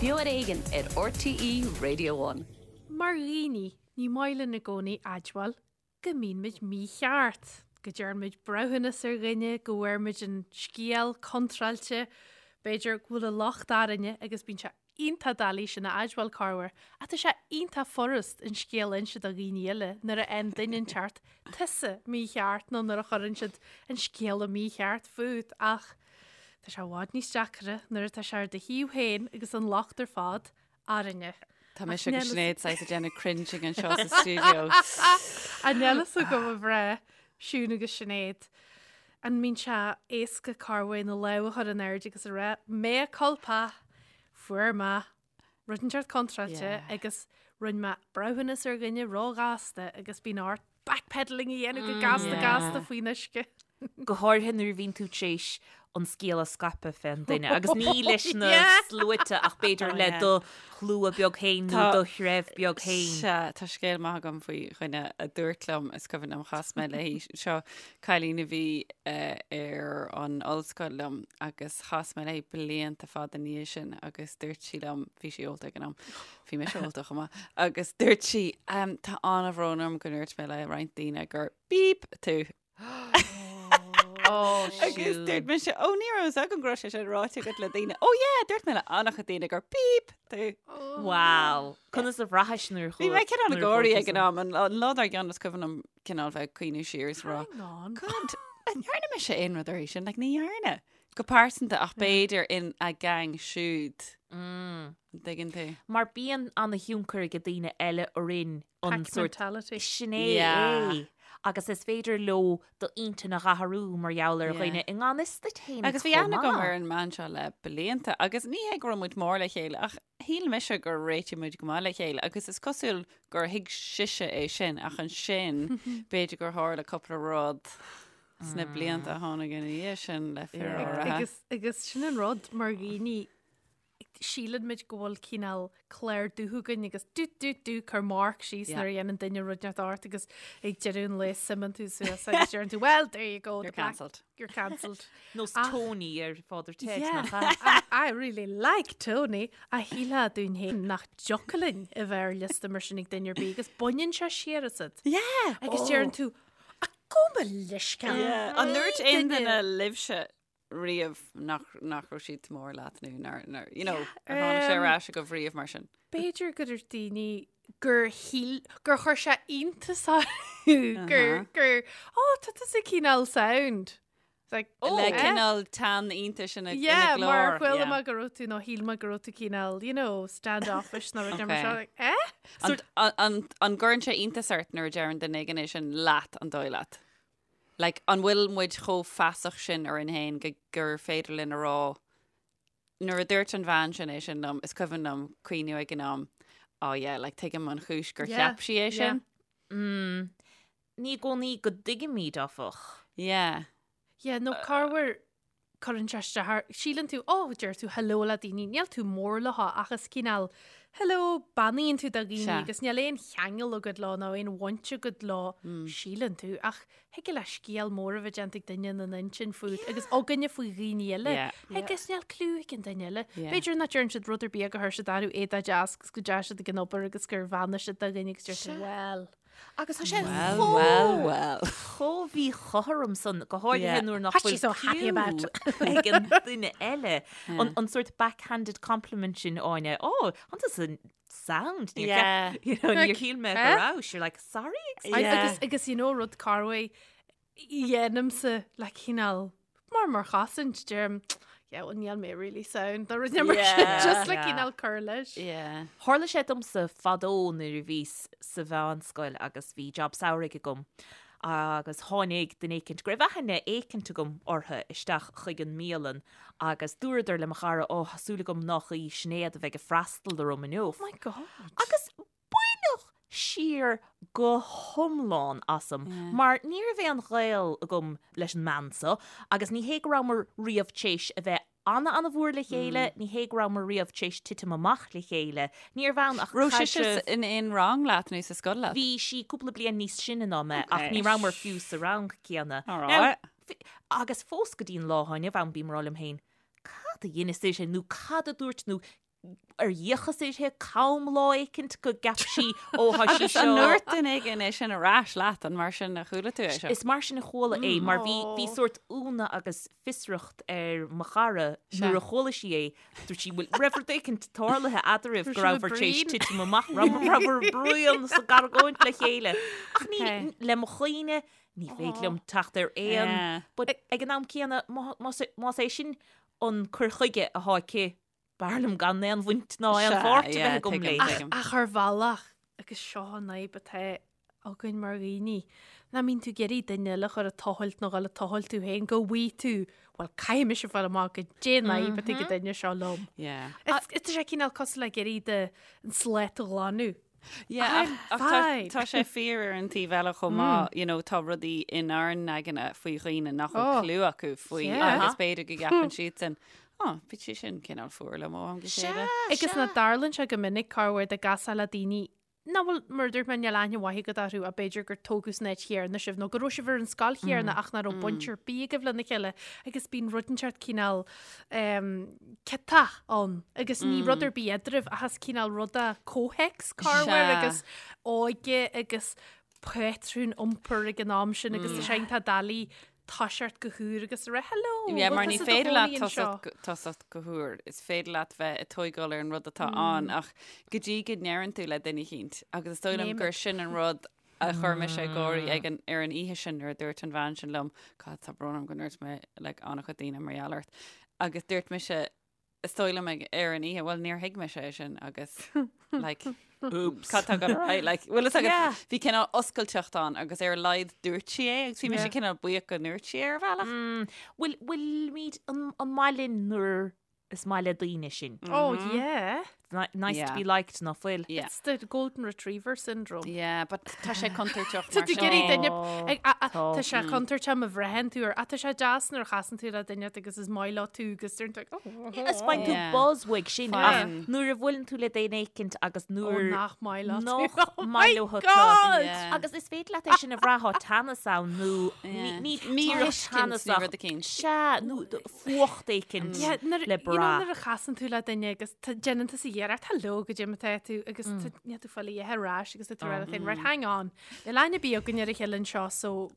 Beo ar Éigean ar RTÉ Radio One. Mar dhaoine, ní maith linn i gcónaí admháil go mbíonn muid mícheart, go dtearn muid breithiúnas ar dhuine, go bhfuair muid an scéal contráilte, b'fhéidir go bhfuil an locht orainne agus bíonn sé iontach doiligh sin a admháil corruair, ach tá sé iontach furast an scéal a inse do dhaoine eile nuair a fhaigheann duine inteacht tusa mícheart nó nuair a chuireann siad an scéal mícheart fút ach tá sé i bhfad níos deacra nuair atá sé ar do thaobh féin agus an locht ar fad orainne. Tá mise agus Sinéad saghas ag déanamh cringing anseo sa stiúideo. An níl fhios agam a mhná, Siún agus Sinéad. An mbíonn sé éasca corruair na lámha a chur in airde agus a rá, mea culpa, fuair mé rud inteacht contráilte agus rinne mé breithiúnas ar dhuine róghasta agus bíonn ort backpedaling a dhéanamh go gasta gasta faoin uisce. Go háirithe nuair a bhíonn tú tar éis an scéal a scaipeadh fén duine agus ní leis na sluaite ach b'fhéidir le do shlua beag féin nó do threibh beag féin. Sea, tá scéal maith agam faoi dhuine a dúirt liom, is cuimhin liom, chas mé léi, seo cailín a bhí ar an ollscoil liom agus chas mé léi blianta fada ina dhiaidh sin agus dúirt sí liom, bhí sí ólta ag an am, bhí mise ólta chomh maith, agus dúirt sí, tá an-bhrón orm go ndúirt mé le roinnt daoine gur beep tú. Oh, Agus dúirt mise, ó ní raibh fhios agam go raibh sé sin ráite agat le daoine. Ó yeah, dúirt mé le an-chuid daoine gur beep tú. Wow. Conas a bhraithis nuair Bhí mé cineál ag gáirí ag an am, an lá dár gcionn is cuimhin liom cineál bheith ag cuimhniú siar is rá. Hang on. God, an ndearna mise aon rud uirthi sin? Like, ní dhearna. Go pearsanta ach b'fhéidir in a gang siúd. Mm. An dtuigeann tú? Mar bíonn an-thionchar ag daoine eile orainn an Pack sórt mentality. sin é Yeah. é. Agus is féidir leo d'intinn a dh'athrú mar gheall ar Yeah. dhaoine i ngan fhios duit féin Agus bhí chomh aithne agam maith. ar an mbean seo le blianta agus ní hé go raibh muid mór le chéile ach shíl mise gur réitigh muid go maith le chéile agus is cosúil gur thuig sise é sin ach ansin b'fhéidir gur tharla cúpla rud sna blianta a tháinig ina dhiaidh sin le fir áirithe. Agus, agus sin an rud mar dhaoine síleann muid go bhfuil cineál clár dubh againn agus dú dú dú cur marc síos nuair a dhéanann duine rud inteacht ort agus ag deireadh an lae suimeann tú suas agus deireann tú well there you go You're the black- cancelled. you're cancelled. Nós Ach- Tony ar Father Ted Yeah. nach ea? I, I really like Tony a shílfeá dúinn féin nach dtiocfadh linn a bheith ar liosta mar sin ag duine ar bith agus baineann sé siar asat. Yeah! Agus deireann tú "A gabh mo leithscéal. Yeah. An ndúirt aon duine libhse riamh nach, nach raibh siad mór leat nó nár, nár, you know, ar tháinig sé ar ais agaibh riamh mar sin? B'fhéidir gur dúirt daoine gur shíl, gur chuir sé iontas orthu gur, gur, ó, tá tusa cineál sound. It's like, oh, Le eh? cineál teann iontais ina, ina Yeah, mar glór. chuala Yeah. mé go raibh tú nó shíl mé go raibh tú cineál, you know, standoffish nó rud mar Okay. seo, like, eh? An, an, an, an gcuireann sé iontas ort nuair a deireann duine éigin é sin leat an dóigh leat? Like, an bhfuil muid chomh feasach sin orainn féin go gur féidir linn a rá, nuair a dúirt an bhean sin é sin liom, is cuimhin liom cuimhniú ag an am, oh yeah, like, tuigim an chúis gur Yeah, cheap sí é yeah. sin. Mm. Ní i gcónaí go dtuigimid, áfach. Yeah. Yeah, nó corruair cuireann sé isteach ort, síleann tú, oh, deir tú hello le daoine, níl tú mór leo ach is cineál hello, beannaíonn tú do dhaoine Sea. agus níl aon cheangal agat leo nó aon bhaint agat leo, síleann tú, ach thig le scéal mór a bheith déanta ag duine ina n-intinn fút agus againne faoi dhaoine eile Yeah. agus níl clue ag an duine eile. Yeah. B'fhéidir nach deireann siad rud ar bith gur chuir siad orthu éadaí deas agus go dteachaigh siad ag an obair agus gur bheannaigh siad do dhuine agus deir tú, well. Agus tá sé Well, chomh well, well. chomh mhíchothrom san, go háirithe Yeah. nuair nach What's bhfuil she so happy about? clue ag an duine eile. An, an sort backhanded compliment sin Áine, oh, an tusa sound. Níor Yeah. cheap- you know, níor shíl mé go Eh? raibh. You're like, sorry, excuse Ai, Yeah. Agus, agus you know rud corruair dhéanaimse le cineál mar mar chosaint deirim yeah, well, níl mé really sound nó rud mar sin, Yeah. just le Yeah. cineál cur leis. Yeah. Tharla sé domsa fadó nuair a bhíos sa mheánscoil agus bhí job samhraidh agam agus tháinig duine éicint, go raibh aithne éicint agam orthu, isteach chuig an mbialann agus dúradar le mo chara, ó, tá súil agam nach í Sinéad a bheidh ag freastal orm inniu. Oh my God. Agus baineadh siar go hiomlán asam mar ní raibh aon ghaol agam leis an mbean seo agus ní hé go rabhamar riamh tar éis a bheith ana-ana-mhór le chéile, ní hé go rabhamar riamh tar éis titim amach le chéile, níorbh ann ach Raibh sise caidreamh. in aon rang leat nó sa scoil leat? Bhí sí cúpla bliain níos sine ná mé ach Okay. ní rabhamar fiú sa rang céanna. All Now, right. agus fós go dtí an lá inniu ann bím ag rá liom féin, cad a dheineas é sin nó cad a dúirt nó. ar fhéachas uirthi cam lá éicint go gceap sí ó thá sí Agus an seo. ndúirt duine éigin é sin ar ais leat, an mar sin a chuala tú é seo? Is mar sin a chuala é mar bhí bhí sórt ionadh agus fiosracht ar mo chara nuair a chuala sí é. Dúirt sí bhfuil raibh rud éicint tarlaithe eadraibh go rabhabhair tar éis titim amach rabhabhair bruíon is ag argóint le chéile. Ach ní le mo chuimhne ní féidir liom teacht ar aon but ag an am céanna más é sin an cur chuige athá aici B'fhearr liom gan aon bhaint ná aon pháirt a bheith agam léi. Ach ar bhealach, agus seo an fhadhb atá againn mar dhaoine, nach mbíonn tú ag iarraidh duine eile a chur ag tochailt nó dhul ag tochailt tú féin, go bhfaighidh tú, bhuel, caithfidh mise fáil amach goidé an fhadhb atá ag an duine seo liom. Tá sé cineál cosúil le ag iarraidh an slate a ghlanadh. Yeah, ach tá sé fíor ar an taobh eile chomh maith, you know, tá rudaí inár n-aigne faoi dhaoine nach bhfuil clue acu faoi agus b'fhéidir go gceapann siadsan, oh, bhí sé sin cineál fuar liom ó am go chéile. Agus nach dtarlaíonn sé go minic corruair dá gcasfá le daoine nach bhfuil, mar a dúirt mé, níl aithne mhaith agat orthu ach b'fhéidir gur tógadh san áit chéanna sibh nó go raibh sibh ar an scoil chéanna ach nach raibh baint ar bith agaibh lena chéile agus bíonn rud inteacht cineál ciotach ann agus ní rud ar bith eadraibh ach is cineál ruda comhthéacs corruair agus óige agus patrún iompair ag an am sin agus tá sé iontach doiligh toiseacht go húr agus a rá hello Yeah, mar ní féidir leat tosacht go húr, is féidir leat bheith ag tógáil ar an rud atá ann ach go dtí go ndeireann tú le duine eicínt agus is dóigh liom gur sin an rud a chuir mise ag gáirí ag an, ar an oíche sin nuair a dúirt an bhean sin liom, God, tá brón orm go ndúirt mé like, an-chuid daoine mar gheall ort. Agus dúirt mise, is dóigh liom ag, ar an oíche, well, níor thuig mise é sin agus like, Oops. Cad tá ag dul ar aghaidh? Like, bhfuil fhios agat, Yeah. bhí cineál oscailteacht ann agus ar a laghad dúirt sí é agus bhí mise Yeah. cineál buíoch go ndúirt sí é ar bhealach. Mm, bhfuil, bhfuilimid an, an maith linn nuair Is maith le daoine sin. Oh yeah. Nice to be liked ná fuil. Yeah. It's the golden retriever syndrome. Yeah, but tá sé contúirteach Tá mar tú sin. ag iarraidh duine ag- a- a- Tá. Tá sé contúirteach má bhraitheann tú ar tá sé deas nuair a chasann tú le duine agus is maith leo tú agus deireann tú oh, Is faigheann tú Yeah. buzz uaidh sin ach Faigheann. nuair a bhuaileann tú le duine éicint agus oh, nuair nach maith leat tú. nach Oh maith my leo tú. God! Yeah. Agus is féidir leat é sin a bhrath tá teannas ann nó Yeah. ní Míthuiscint nó teannasach. rud eicínt. Sea, nó fuacht éicint Yeah, nuair- le you know, brath. nuair a chasann tú le duine agus tá- déanann tusa iarracht hello goidé mar atá tú agus tá- níl tú fáil a dhath ar ais agus tá tú ag rá leat féin, right, hang on. Níl aithne ar bith againn ar a chéile anseo so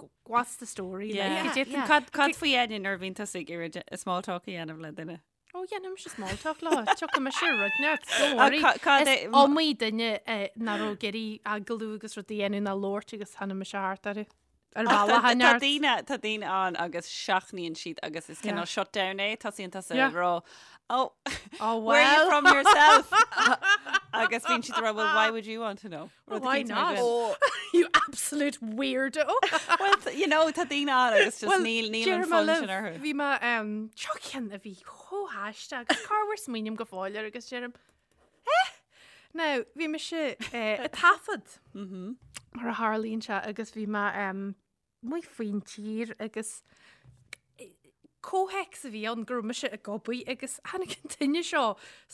g- what's the story? Like, Yeah. goidé Yeah. Cad cad faoi Áine nuair a bhíonn tusa ag iarraidh de- small talk a dhéanamh le duine? Ó, dhéanaimse small talk leo. Tiocfaidh mise ar rud neart. Don't Ah, worry. ca- cad Is é- iomaí duine eh, nach raibh ag iarraidh agallamh agus rud a dhéanamh ná labhairt agus tháinig mise thart orthu. Ar bhealach Tá an neart. daoine tá daoine ann agus seachnaíonn siad agus is cineál shutdown é, tosaíonn tusa Yeah. ag rá oh, Oh, where are you well. from yourself? agus bíonn siad ag rá well why would you want to know? Well, Rud why éicint mar not? sin. You absolute weirdo. Well, you know, tá daoine ann agus just níl níl an Deirim fonn libh, sin orthu. Bhí mé um, seo ceann a bhí chomh haisteach agus corruair smaoiním go fóill air agus deirim eh? Now, bhí mise eh, ag taifead mar a tharlaíonn sé agus bhí mé um, amuigh faoin tír agus comhthéacs a bhí ann go raibh mise ag obair agus tháinig an duine seo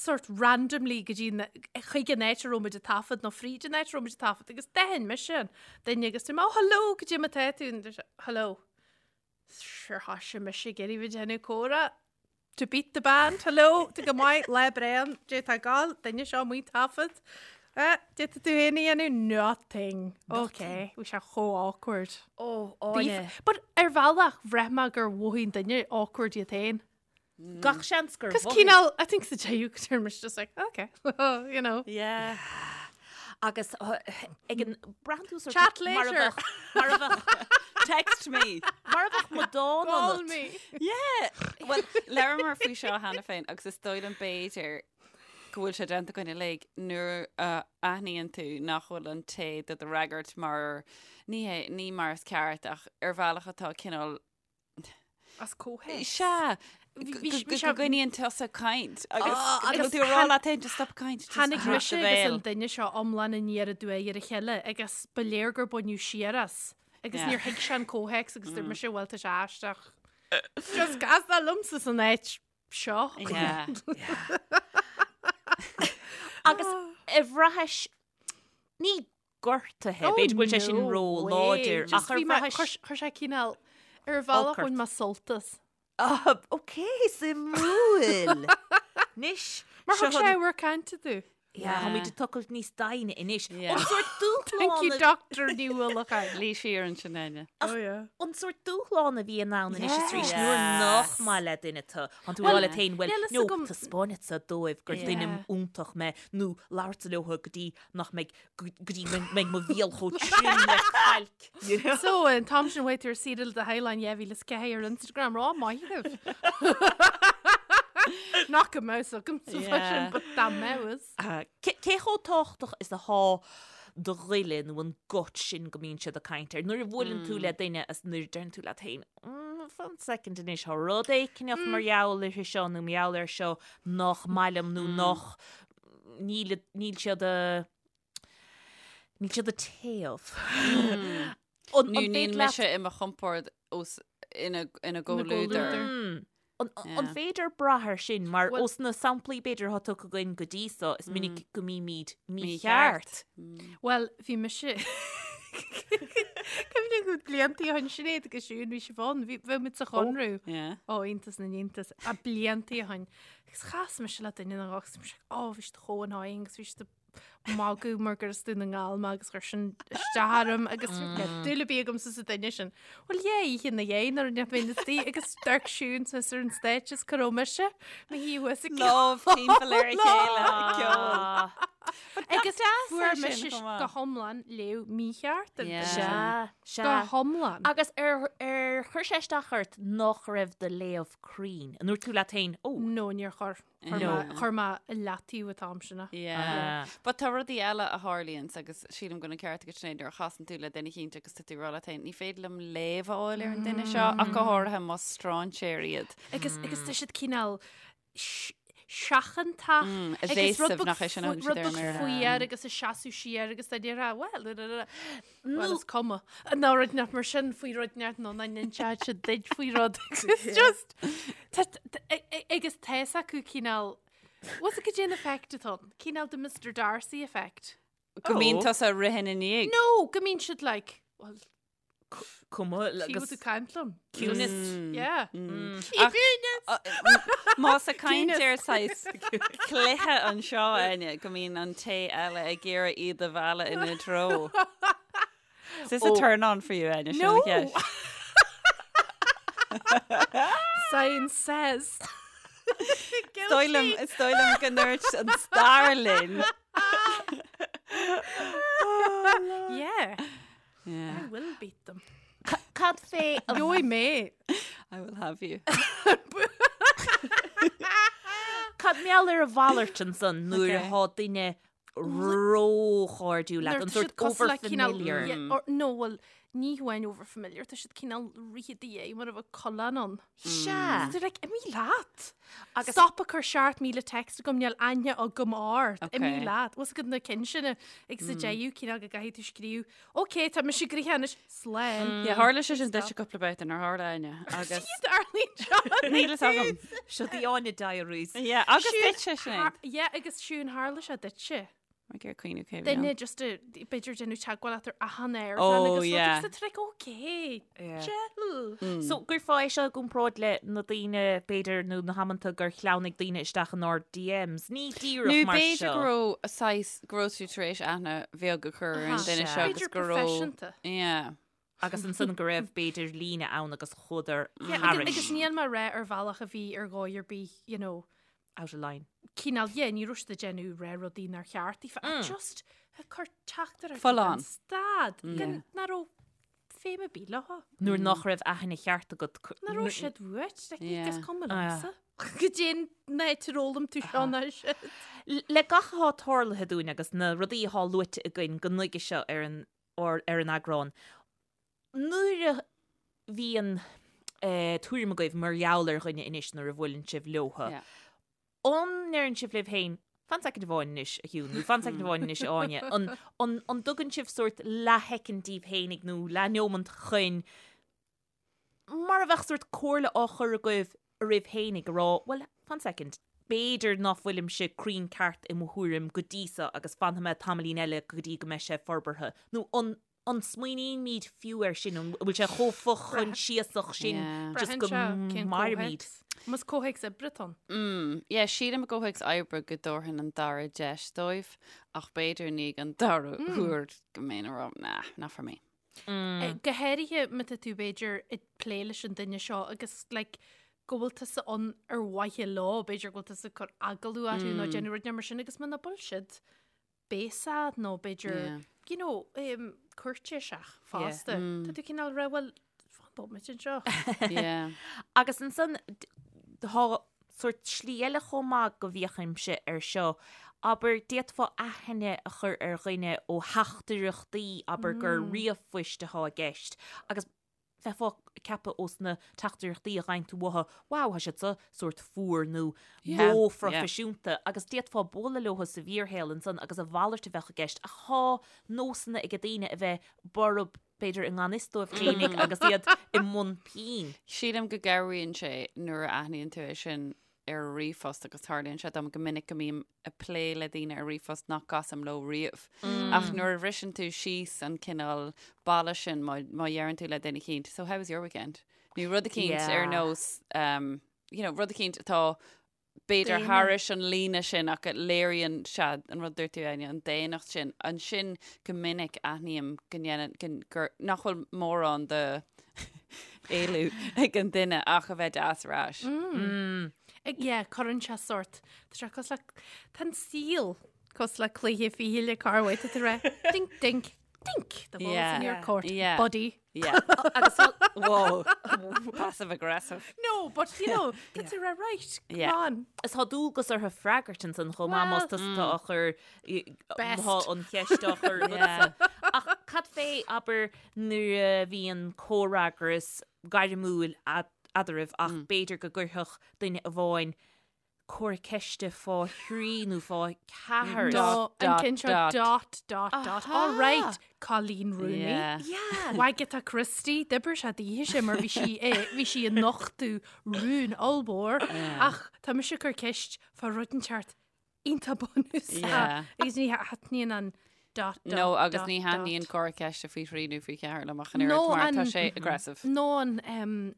sort randomly go dtí chuig an áit a raibh muid ag taifead nó fríd an áit a raibh muid ag taifead agus d'aithin mise an duine agus dúirt mé, oh hello, goidé mar atá tú and dúirt sé, hello. Sure thoisigh mise ag iarraidh bheith ag déanamh comhrá. To beat the band, hello, tá go maith, lá breá, goidé tá ag gabháil, duine seo amuigh ag taifead. Eh, goidé tá tú féin a dhéanamh? Nothing. Ok, bhí sé chomh awkward. Ó, Bhí- But ar bhealach, bhraith mé gur mhothaigh an duine awkward iad féin. Gach seans gur Cos mhothaigh. cineál, I think sa deireadh go deireadh mise just like, ok, you know. Yeah. Agus ag an braitheann tú sort Chat mar a later. bheadh- mar a bheadh Text me. mar a bheadh amadán Call ionat. me. Yeah. Well, labhramar faoi seo cheana féin agus is dóigh liom b'fhéidir go bhfuil sé déanta againn uilig nuair a aithníonn tú nach bhfuil an té do do fhreagairt mar ní hé ní mar is ceart ach ar bhealach atá cineál As comhthéacs. Sea, Bhí- go bhí- bhí go sé- gcoinníonn tusa caint agus Ah, go agus bhfuil tú ag rá leat féin just stop caint, just Tháinig dhruid mise do agus bhéal. an duine seo iomlán aniar aduaidh ar a chéile agus ba léir gur baineadh siar as agus Yeah. níor thuig sé an comhthéacs agus dúirt mise bhuel tá sé aisteach. Just casadh liomsa san áit seo. Yeah. Agus ar bhraithis ní gortaithe, Oh, b'fhéidir go bhfuil sé sin no ró way. láidir Just ach ar bhí mé- bhraithis chuir chuir sé cineál ar bhealach Olc ort. bhain mé sult as. Ah, ok, suimiúil. Anois. Mar thug sé ábhar cainte domh. Yeah. Táimid ag tochailt níos doimhne anois. Yeah. An sórt Thank you, dúshlán a- Doctor Ní Uallacháin. Luí siar ansin, Áine. Oh yeah. An sórt dúshlán a bhíonn ann anois is arís Yeah. nuair nach maith le duine tú. Tá tú ag rá leat féin, bhuel, níl fhios no, agam- taispeánfadsa dóibh gur duine Yeah. iontach mé nó labhairt leo go dtí nach mbeidh go dtí go mbeidh mo bhéal chomh trim le cailc. You know? So, an t-am sin uait ar saoire do theaghlach 2004 ar Instagram, rá maith thú. Nach go mbeadh agam sa Yeah. sin, but dá mbeadh. Ah, Cé cé chomh tábhachtach is atá do ghoile nó an gut sin go mbíonn siad ag caint air? Nuair a bhuaileann tú le duine is nuair a deireann tú leat féin, "Mm, fan second anois, tá rud éicneach mar gheall uirthi seo nó mar gheall air seo nach maith liom nó nach níl níl siad a níl siad ag téamh. An Nó an níl féidir leat mise i mo chompord os ina ina gcomhluadar. gcomhluadar. Mm. An an Yeah. féidir brath air sin mar Well- os na samplaí b'fhéidir atá tugtha againn go dtí so is minic go mbímid mícheart. Well, bhí mise Cuimhním go bliantaí ó shin Sinéad agus Siún bhí sibh ann, bhí bhí muid sa Chonradh. Yeah. Ó, iontas na n-iontas, a bliantaí ó shin. Agus chas mise le duine nó agus mise, ó, bhí siad chomh annoying agus bhí siad ag magadh mar gur as Dún na nGall mé agus chuir sin isteach orm agus dúil ar bith agamsa sa duine sin. Well, yeah, oíche ina dhiaidh nuair a bhí mé istigh agus d'amharc Siún suas ar an stage is cá raibh mise, mo shuí thuas ag Lámh timpeall ar a chéile ag ceol. Agus fuair sin mise chomh maith. go hiomlán léamh mícheart ar Yeah. Sea, sea. Go hiomlán. Agus ar ar chuir sé isteach ort nach raibh do léamh cruinn? An ndúirt tú leat féin, ó, No, níor chuir. Chuir No. mé- Chuir mé i leataobh an t-am sin é. Yeah. But tá rudaí eile a tarlaíonns agus sílim go bhfuil an ceart agat Sinéad nuair a chasann tú le duine eicínt agus tá tú ag rá leat féin, ní féidir liom léamh a fháil ar an duine seo ach go háirithe más stráinséir iad. Agus agus tá siad cineál s- seachantach Mm, agus rud evasive beag nach é sin a fu- thugann rud siad ar an beag mBéarla. fuar agus ag seasamh siar agus tá ag rá, well, well, Nó- is cuma. Nó rud nach mar sin faoi rud neart nó nach n-inseodh siad duit faoi rud. It's just tá- tá- a- a- agus tá fhios acu cineál What's it goidé an effect atá ann? Cineál de Mr Darcy effect. Go mbíonn tusa ag rith ina ndiaidh. No, go mbíonn siad like, well, cuma Tí agus tú caint liom. ciúnas. Yeah. Ach- Más ag caint ar saghas cluiche anseo Áine go mbíonn an té eile ag iarraidh iad a mhealladh ina dtreo. Is this a turn on for you Áine? Sin an No. cheist. Science says. Is dóigh liom is dóigh liom go ndúirt an stair linn. Yeah. Yeah. I will beat them. Cad fé a Gheobhaidh mé. I will have you. Cad mar gheall ar a mhalairt ansan nuair Okay. atá duine róchairdiúil leat, Nuair an tá sórt siad cosúil le cineál- overfamiliar. Yeah, or- no, well, ní hamháin overfamiliar, tá siad cineál rith i do dhiaidh mar a bheadh coileán ann. Sea. They're like, imigh leat. Agus- Stop ag cur 7,000 text agam, níl aithne agam ort. Okay. Imigh leat. Bhfuil fhios agat na cinn sin agus sa deireadh cineál go gcaithfidh tú scríobh, Ok, tá mise gnoitheach anois, slán. Yeah, tharla sé sin duit cúpla babhta nár tharla Áine agus Tarlaíonn seo. níl fhios agam. Seo the Áine Diaries. Yeah, agus duitse Sinéad. Yeah, agus Siún tharla sé duitse. Mar gur cuimhneamh cé Duine just a b'fhéidir déanamh teagmháil leat ar achan air Oh, agus yeah. agus tá like, okay, chill. So gcuirfeá é seo i gcomparáid le na daoine b'fhéidir nó na hamanta gur shleamhnaigh daoine isteach inár DMs. Ní díreach Nó mar b'fhéidir seo. go raibh saghas go raibh tú tar éis aithne bheag a chur ar an Aha. duine seo agus B'fhéidir go raibh proifisiúnta. Yeah. Agus ansan go raibh b'fhéidir líne ann agus chuadar Yeah, agus, thairis. agus níl mé ag rá ar bhealach a bhí ar dhóigh ar bith, you know, Out of line. cineál, yeah, ní raibh siad ag déanamh ré rudaí nár cheart daofa, ach just ag cur teachtaireachtaí Full gan on. stad, gan nach raibh feidhm ar bith leo. Nuair nach raibh aithne cheart agat. Nach raibh siad uait, like, Yeah. is cuma Ah. liomsa. Goidé an áit ar fhoghlaim tú seo ná siad. Le gach atá tarlaithe dúinn agus na rudaí atá luaite againn go nuige seo ar an ar ar an eagrán, nuair a bhíonn eh, tuairim agaibh mar gheall ar dhuine anois nuair a bhuaileann sibh leotha, Yeah. an ndeireann sibh libh féin, fan soicind amháin anois, a Shiún, nó fan soicind amháin anois, a Áine, an, an, an dtugann sibh sórt leathshoicind daoibh féinig nó leathneomant chun mar a bheadh sórt comhairle á chur agaibh oraibh féinig a rá, bhuel, fan soicind, b'fhéidir ná fuilimse cruinn ceart i mo thuairim go dtí seo agus fanfaidh mé tamaillín eile go dtí go mbeidh sé forbartha, nó an An smaoinímid fiú air sin? An bhfuil sé chomh fochoinsiasach sin Yeah. just go Braitheann sé cén mairimid? comhthéacs. Más comhthéacs oibre atá ann. Mm, yeah, sílim i gcomhthéacs oibre go dtabharfainn an dara deis dóibh, ach b'fhéidir i ndiaidh an dara huair go mbeinn ag rá, nah, not for me. Go háirithe má tá tú b'fhéidir ag plé leis an duine seo agus like, go bhfuil tusa ann ar mhaithe leo, b'fhéidir go bhfuil tusa ag cur agallamh orthu nó déanamh rud mar sin agus muna bhfuil siad béasach nó b'fhéidir Yeah. you know, um, cúirtéiseach fosta. Tá tú cineál rá bhuel fan bomaite anseo. Yeah. Agus ansan d- tá sórt slí eile chomh maith go bhféachaimse ar seo. Abair, d'fhéadfá aithne a chur ar dhuine ó theachtaireachtaí, abair gur ríomhphoist atá i gceist, agus bheifeá ag ceapadh ós na teachtaireachtaí a fhaigheann tú uathu, wow, tá siad seo sórt fuar nó róphroifisiúnta, agus d'fhéadfá bualadh leo sa bhfíorshaol ansan agus a mhalairt a bheadh i gceist. Ach tá nósanna ag daoine a bheith borb, b'fhéidir i ngan fhios dóibh féinig agus iad i mbun pinn. Sílim go gcabhraíonn sé nuair a aithníonn tú é sin ar ríomhphost agus tarlaíonn sé dom go minic go mbím ag plé le daoine ar ríomhphost nach gcasaim leo riamh. Ach nuair a bhriseann tú síos an cineál balla sin má má dheireann tú le duine eicínt, so how was your weekend? Nó rud eicínt ar nós um, you know, rud eicínt atá b'fhéidir thairis an líne sin ach a léiríonn sea an rud dúirt tú Áine, an daonnacht sin. Ansin go minic aithním go ndéanann go gur nach bhfuil mórán de éileamh ag an duine ach a bheith deas ar ais. Ag yeah, cuireann sé sort. Tá sé cosúil le tá an saol cosúil le cluiche fichille corruair tá tú ag rá dink dink dink the ball's in your court Yeah. buddy. Yeah. Agus Whoa. Passive aggressive. No, but you know, tá tú ag rá right, come Yeah. on. Is tá dualgas orthu freagairt ansan chomh maith más tusa atá á chur Best. Tá an cheist á chur agatsa. Ach cad fé, abair, nuair a bhíonn comhfhreagras gairmiúil eadraibh ach b'fhéidir go gcuirfeadh duine amháin comhartha ceiste fá thrí nó fá cheathair. Dot, Dot, an ceann seo dot. dot, dot, dot. All right, Colleen Rooney. Yeah. Yeah. Wagatha Christie, d'oibir sé daoithe sin mar bhí sí eh, bhí sí ag nochtadh rún ollmhór ach tá mise ag cur ceist fá rud inteacht iontach bunúsach Yeah. agus ní thaitníonn an dot dot No, agus dot, ní dot. thaitníonn comhartha ceiste faoi thrí nó faoi cheathair liom ach an No, oiread mar tá an- sé aggressive. Nó an um,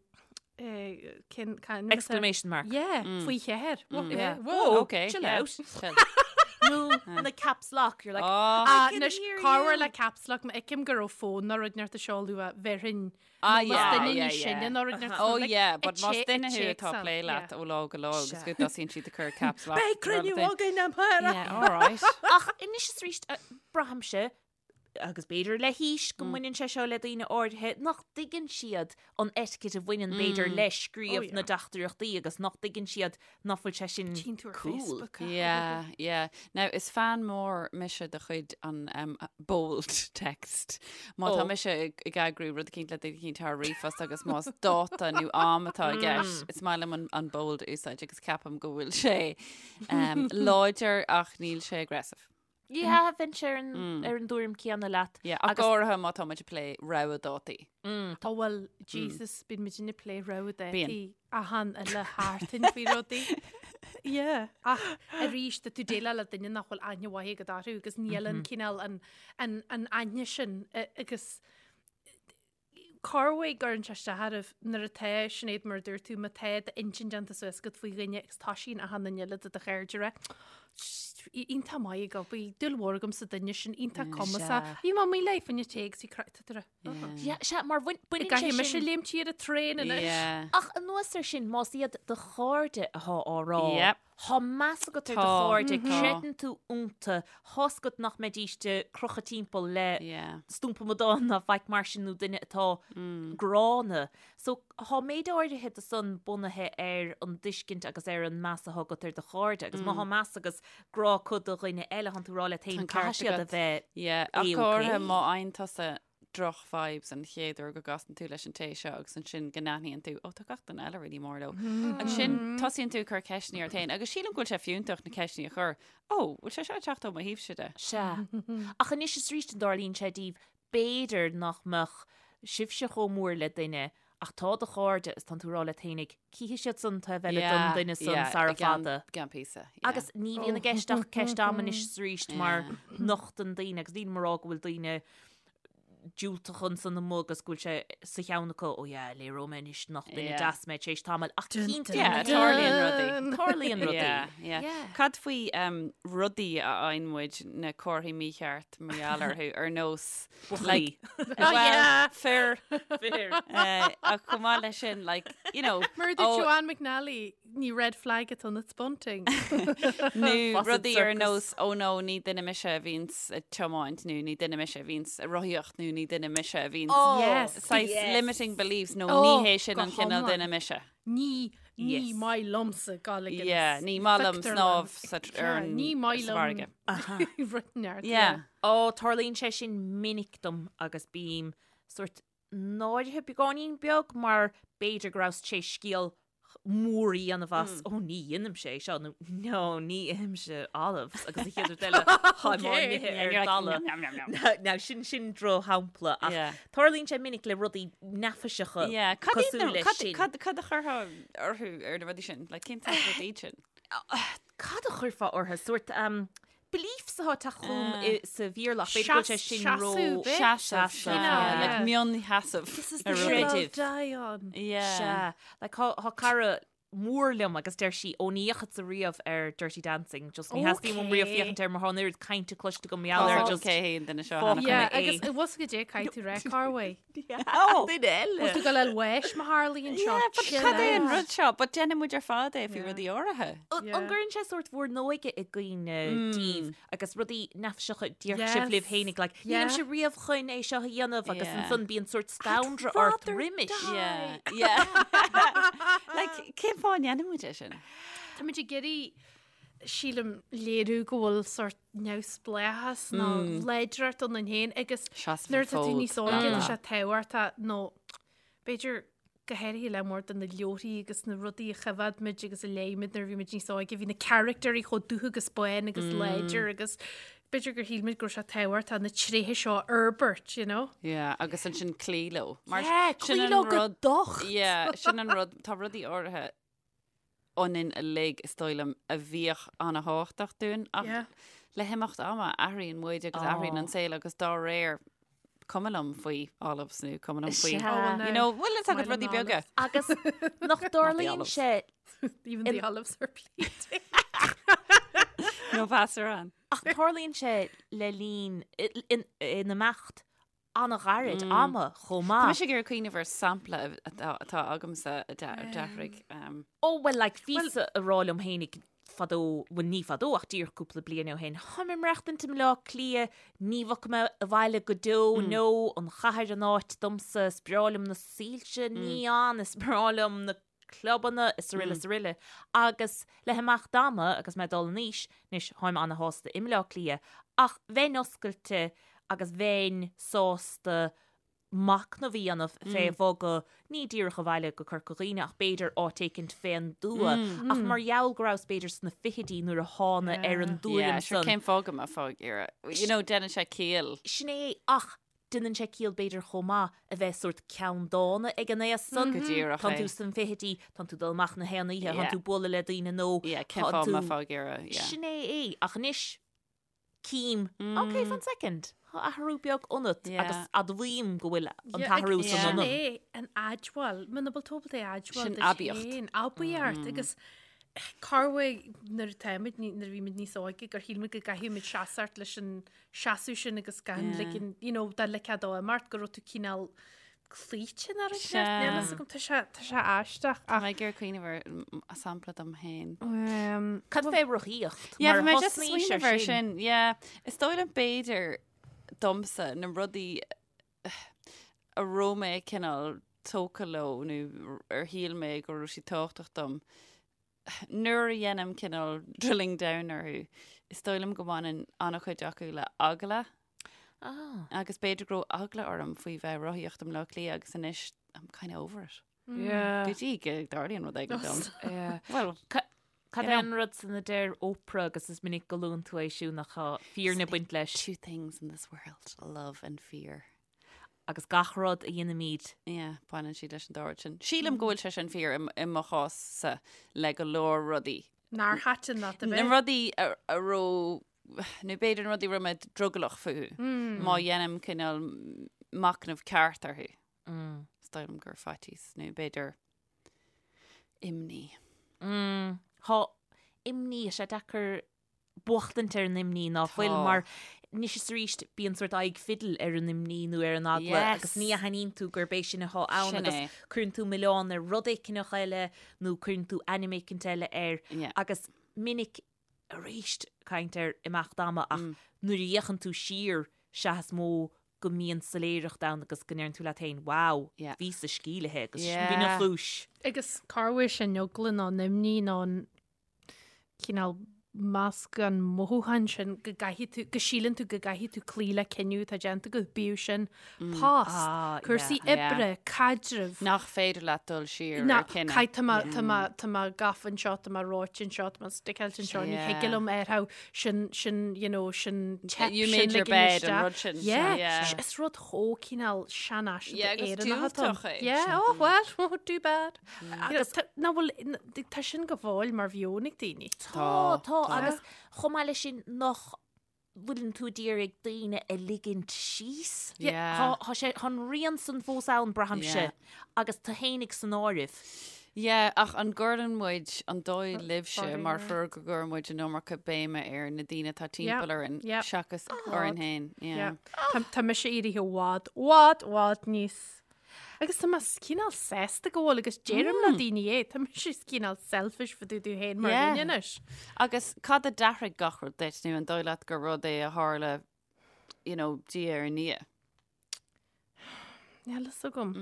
eh, cin, can, Exclamation mark. Yeah, faoi cheathair. Whoa, Yeah. Whoa. Okay. Chill yeah. out. Chill. Nó na caps lock, you're like, Oh. Ah, can anois hear corruair you. le caps lock má fheicim go raibh fón nó rud inteacht á seoladh bhéarfainn Ah, Más yeah, duine yeah, níos sine yeah. nó rud inteacht Oh like, yeah, but a más che- a duine thú atá téacs plé ann, leat yeah. ó lá go lá agus go dtosaíonn siad ag cur caps lock. Beidh cruinniú againn amárach. Yeah, all right. Ach anois is arís eh, braithimse agus b'fhéidir le haois go mbaineann sé seo le daoine áirithe nach dtuigeann siad an etiquette a bhaineann b'fhéidir le scríobh Oh, yeah. na dteachtaireachtaí agus nach dtuigeann siad nach bhfuil sé sin Tchíonn tú ar cool. Facebook. ah. Yeah, yeah. Now, is fan mór mise de chuid an um, bold text. Má tá Oh. mise ag ag eagrú rud eicínt le duine eicínt thar ríomhphost agus más dáta nó am atá i gceist, is maith liom an, an bold a úsáid agus ceapaim go bhfuil sé um, láidir ach níl sé aggressive. Yeah, bheinnse ar an, ar an dtuairim céanna leat. Yeah, ach Agus- go háirithe má tá muid ag plé rogha dátaí. Tá bhuel, Jesus, bíonn muid ag plé rogha Bíonn. dátaí achan uile sheachtain faoi rudaí. Yeah, ach arís tá tú déileáil le duine nach bhfuil aithne mhaith agat orthu agus níl an cineál an, an, an aithne sin eh, agus corruair cuireann sé isteach oraibh nuair atá Sinéad mar a dúirt tú má tá d'intinn déanta suas agat faoi dhuine agus toisíonn achan duine eile de do chairde ag rá iontach maith ag obair, dúil mhór agam sa duine sin, iontach cumasach. Bhí mé amuigh léi fá choinne tae agus bhí craic tá tú ag rá. Yeah, sea, mar bhain- baineann sé Caithfidh mise sin- léimt ar an traein anois. Yeah. Ach anuas air sin, más iad do chairde atá á rá, Yep. Tá meas agat ar do Tá. chairde, Tá. creideann tú iontu, tá's agat nach mbeidíst ag crochadh timpeall le Yeah. stumpa amadáin ná faic mar sin nó duine atá gránna. So tá méid áirithe de san bunaithe ar an dtuiscint agus ar an meas atá agat ar do chairde agus má tá meas agus grá acu do dhuine eile, tánn tú ag rá leat féin Tá an ceart caithfidh siad a agat. bheith Yeah, ach A-okay. go háirithe má fhaigheann tusa droch vibes an chéad uair go gcasann tú leis an té seo agus ansin go n-aithníonn tú, ó tá gach duine eile really mór leo. Ansin tosaíonn tú ag cur ceisteanna ort féin agus sílim go bhfuil sé fiúntach na ceisteanna a chur, ó, bhfuil sé seo ag teacht ó mo thaobhse de? Sea. Ach anois is arís an dtarlaíonn sé daoibh, b'fhéidir nach mbeadh sibhse chomh mór le duine ach tá do chairde is tánn tú ag rá leat féinig, cífidh siad san taobh eile don duine san sara fada. I gceann píosa. yeah. Agus ní bhíonn i gceist ach ceist ama anois is arís mar nochtann daoine agus nílim ag rá go bhfuil daoine. diúltach ansan amuigh agus go bhfuil sé sa cheann acu, oh yeah, léireoidh mé anois nach duine deas mé tar éis tamaill ach cinnte Yeah, tarlaíonn rudaí. Tarlaíonn rudaí. Yeah, yeah. Yeah. Cad faoi um, rudaí a fhaigheann muid na comharthaí mícheart mar gheall orthu ar nós Buachaillí. well, yeah. fir Fir. uh, ach chomh maith leis sin like, you know, Mar a dúirt oh, Joanne McNally, ní red flag atá ann it's bunting. Nó Fawcett rudaí ar Circus. nós ó nó ní duine mise a bhíonns ag tiomáint nó ní duine mise a bhíonns ag rothaíocht nó ní duine mise a bhíonns Oh, Yes. saghas yes. limiting beliefs nó Oh, ní hé sin go an cineál hiomlán. duine mise. Ní ní Yes. maith liomsa dul ag an Yeah, ní maith liom pictiúrlann. snámh sa tr- ar Yeah, an ní maith sa liom bhfarraige. rud neart. Yeah. Ó, tarlaíonn sé sin minic dom agus bím sort náirithe beagáinín beag mar b'fhéidir go rabhas tar éis scéal mór a dhéanamh as, ó ní dhéanaimse é seo nó no ní ithimse olives agus an chéad rud eile táim á n-ithe Yeah, ar you're like, dalladh. "Nom, nom, nom, nom." Now sin sin drochshampla ach Yeah. tarlaíonn sé minic le rudaí neafaiseacha Yeah, cad iad cosúil na- leis cad- sin. cad- cad a chuirfeá orthu ar na rudaí sin? Like, cén saghas rudaí iad sin? Cad a chuirfeá orthu? Sórt um, beliefs atá ag teacht chugam Ah. i- sa Bhéarla ach b'fhéidir go bhfuil sé sin ró Seasamh, b'é? Seasamh, Seasamh, yeah, like yeah. mionheasamh. This is ar the rudaí. hill I'll Creideamh. die on. Yeah. Sea. Like, tá tá cara mór liom agus deir sí ó ní dheachadsa riamh ar Dirty Dancing, just ní theastaíonn uaim riamh Okay. féachaint air mar tá an oiread cainte cloiste agam mar gheall air Tá just cé hé an duine seo Fuck cheana. Yeah, é. agus i bhfos go dé caithfidh tú rá Carway. Oh, duine eile. Tú go le weis má tharlaíonn seo. Yeah, but chill cad é an out. rud seo? But déanann muid ar fad é faoi rudaí áirithe. An Yeah. an gcuireann sé sórt bhur n-óige i gcuimhne daoibh agus rudaí neafaiseacha a déarfadh sibh Yes. libh fhéinig, like, Yeah. nílimse riamh chun é seo a dhéanamh agus Yeah. ansan bíonn sórt scanradh ort rather roimis. die. Yeah, yeah. Like, cén fáth a ndéanann muid é sin? Tá muid ag iarraidh sílim léiriú go bhfuil sórt neamhspleáchas nó láidreacht ionainn féin agus Seasamh nuair atá tú fód. níos óige tá sé tábhachtach nó b'fhéidir go háirithe le mór de na leabharthaí agus na rudaí a choimhéad muid agus a léigh muid nuair a bhí muid níos óige, bhí na caractéirí chomh dubh agus bán agus láidir agus b'fhéidir gur shíl muid go raibh sé tábhachtach na tréithe seo a fhorbairt, you know? Yeah, agus ansin cloí leo. Mar Yeah, sin cloí an leo go rud- docht. Yeah, sin an rud, tá rudaí áirithe ionainn uilig is dóigh liom a bhíodh an-thábhachtach dúinn ach Yeah. le himeacht ama athraíonn muid agus athraíonn an saol agus dá réir cuma liom faoi olives nó cuma liom faoi Sea. Oh, well, you now, know, bhfuil fhios agat Maith liom rudaí na beaga. Agus nach dtarlaíonn olives. sé Even the olives are pleated. Nó pasarán. ach tarlaíonn sé le linn in in imeacht an-ghairid ama chomh Tá maith. mise ag iarraidh cuimhneamh ar sampla atá atá agamsa a d'athraigh. Um, Ó well like bhíos-sa ag rá liom fhéinig fadó, bhuel ní fadó ach díreach cúpla bliain ó shin, táim ag maireachtaint i mBleá Cliath, ní bhogfaidh mé abhaile go deo, nó an chathair an áit domsa, is breá liom na soilse neon, is breá liom na clubanna, is aroile is aroile. Agus le himeacht ama agus mé ag dul in aois, anois táim ana-shásta i mBleá Cliath, ach bheinn oscailte agus bheinn sásta machnamh a dhéanamh fé bhogadh, ní díreach abhaile go Corca Dhuibhne ach b'fhéidir áit éicint fén dtuath. Ach mar gheall go rabhas b'fhéidir sna fichidí nuair a thána ar an yeah, dtuairim sure, san. cén fáth go mbeifeá ag iarraidh? You know, déanann sé ciall. Sin é ach déanann sé ciall b'fhéidir chomh maith a bheith sórt ceanndána ag an aos san. Go díreach Tánn é. tú sna fichidí, tánn tú ag dul amach na haon oíche, Yeah. tánn tú ag bualadh le daoine nó Yeah, cén tánn fáth tú- go mbeifeá ag iarraidh? Yeah. Sin é é. Ach anois, Cím, ok, fan soicind, tá athrú beag ionat Yeah. agus admhaím go bhfuil an Yeah, t-athrú agus san sin ionam. é an admháil, muna bhfuil tú ábalta é a admháil Sin duit aibíocht. féin, aibíocht agus corruair nuair atáimid, nuair a bhí muid níos óige gur shíl muid go gcaithfidh muid seasamh leis an seasamh sin agus gan Yeah. ligean, you know, dá ligfeá dó imeacht go raibh tú cineál cloíte ar an Sea. Níl fhios agam, tá sé, tá sé aisteach Tá ach mé ag iarraidh cuimhneamh ar sampla dom féin. um, Cad fé rothaíocht? Yeah, Mar bhí mé just ag thosnaís smaoineamh ar sin. Yeah. Is dóigh liom b'fhéidir domsa na rudaí a raibh mé cineál tógtha leo nó ar shíl mé go raibh siad tábhachtach dom. Nuair a dhéanaim cineál drilling down orthu, is dóigh liom go mbaineann an-chuid acu le eagla. Ah. Agus b'fhéidir go raibh eagla orm faoi bheith ag rothaíocht i mBleá Cliath agus anois I'm kind of over it. Yeah. Go dtí go dtarlaíonn rud éigin dom. Yeah. Well, Cad You é know. an rud san a deir Oprah agus is minic go luann tú é siúd nach tá fírinne ag baint leis two things in this world, love and fear. agus gach rud a dhéanaimid. Yeah, baineann siad leis an dá rud sin. Sílim go bhfuil sé sin fíor i mo chás-sa le go leor rudaí. Nár thaitin leat a Na bheith. rudaí a a raibh, nó b'fhéidir na rudaí a raibh mé drogallach fúthu. Má dhéanaim cineál machnamh ceart orthu. Is dóigh liom gur faitíos nó b'fhéidir imní. Tá imní, tá sé deacair buachtaint ar an imní ná fuil mar anois is arís bíonn sórt aghaidh fidil ar an imní nó ar an eagla agus ní aithníonn tú gurb é sin atá ann agus cuireann tú milleán ar rud éigineach eile nó cuireann tú ainm éicint eile air agus minic arís caint ar imeacht ama ach nuair a fhéachann tú siar sea is mó go mbíonn soiléireacht ann agus go ndeireann tú leat féin wow, bhíos-sa sceimhlithe agus b'in an chúis. Agus corruair sin eagla nó an imní nó an cineál meascán mothúchán sin go gcaithfidh tú, go síleann tú go gcaithfidh tú cloí le cinneadh atá déanta agat, bíodh sin post, cúrsaí oibre, caidreamh. Nach féidir leat dul siar ar chinneadh. Caith, tá mé, tá mé, tá mé gafa anseo, tá mé reoite anseo, tá mé stickáilte anseo, ní thig liom ar how sin, sin, you know, sin teip, You sin made your ligean bed, an isteach. rud sin. Yeah, Yeah. is rud chomh cineál seanfhaiseanta Yeah, agus Éireannach atá ann. diúltach é. Yeah, oh well, too bad. Agus ná bhfuil, tá sin go fóill mar mheon ag daoine. Tá, tá, agus chomh maith leis sin nach bhfuileann tú ag iarraidh daoine a ligint síos. Yeah. Tá sé, tá an rian san fós ann, braithimse, agus tú fhéinig san áireamh. Yeah, ach an gcuireann muid, an dóigh libhse, mar thriúr go gcuireann muid an iomarca béime ar na daoine atá timpeall orainn seachas orainn féin. Yeah. Tá mise éirithe i bhfad, bhfad, bhfad níos Agus tá mé cineál sásta go bhfuil agus deirim le daoine é, tá mise cineál selfish fá dtaobh domh féin mar dhuine anois. Agus cad a d'athraigh gach rud duit nó an dóigh leat gur rud é a tharla you know, diaidh ar ndiaidh? Níl fhios agam.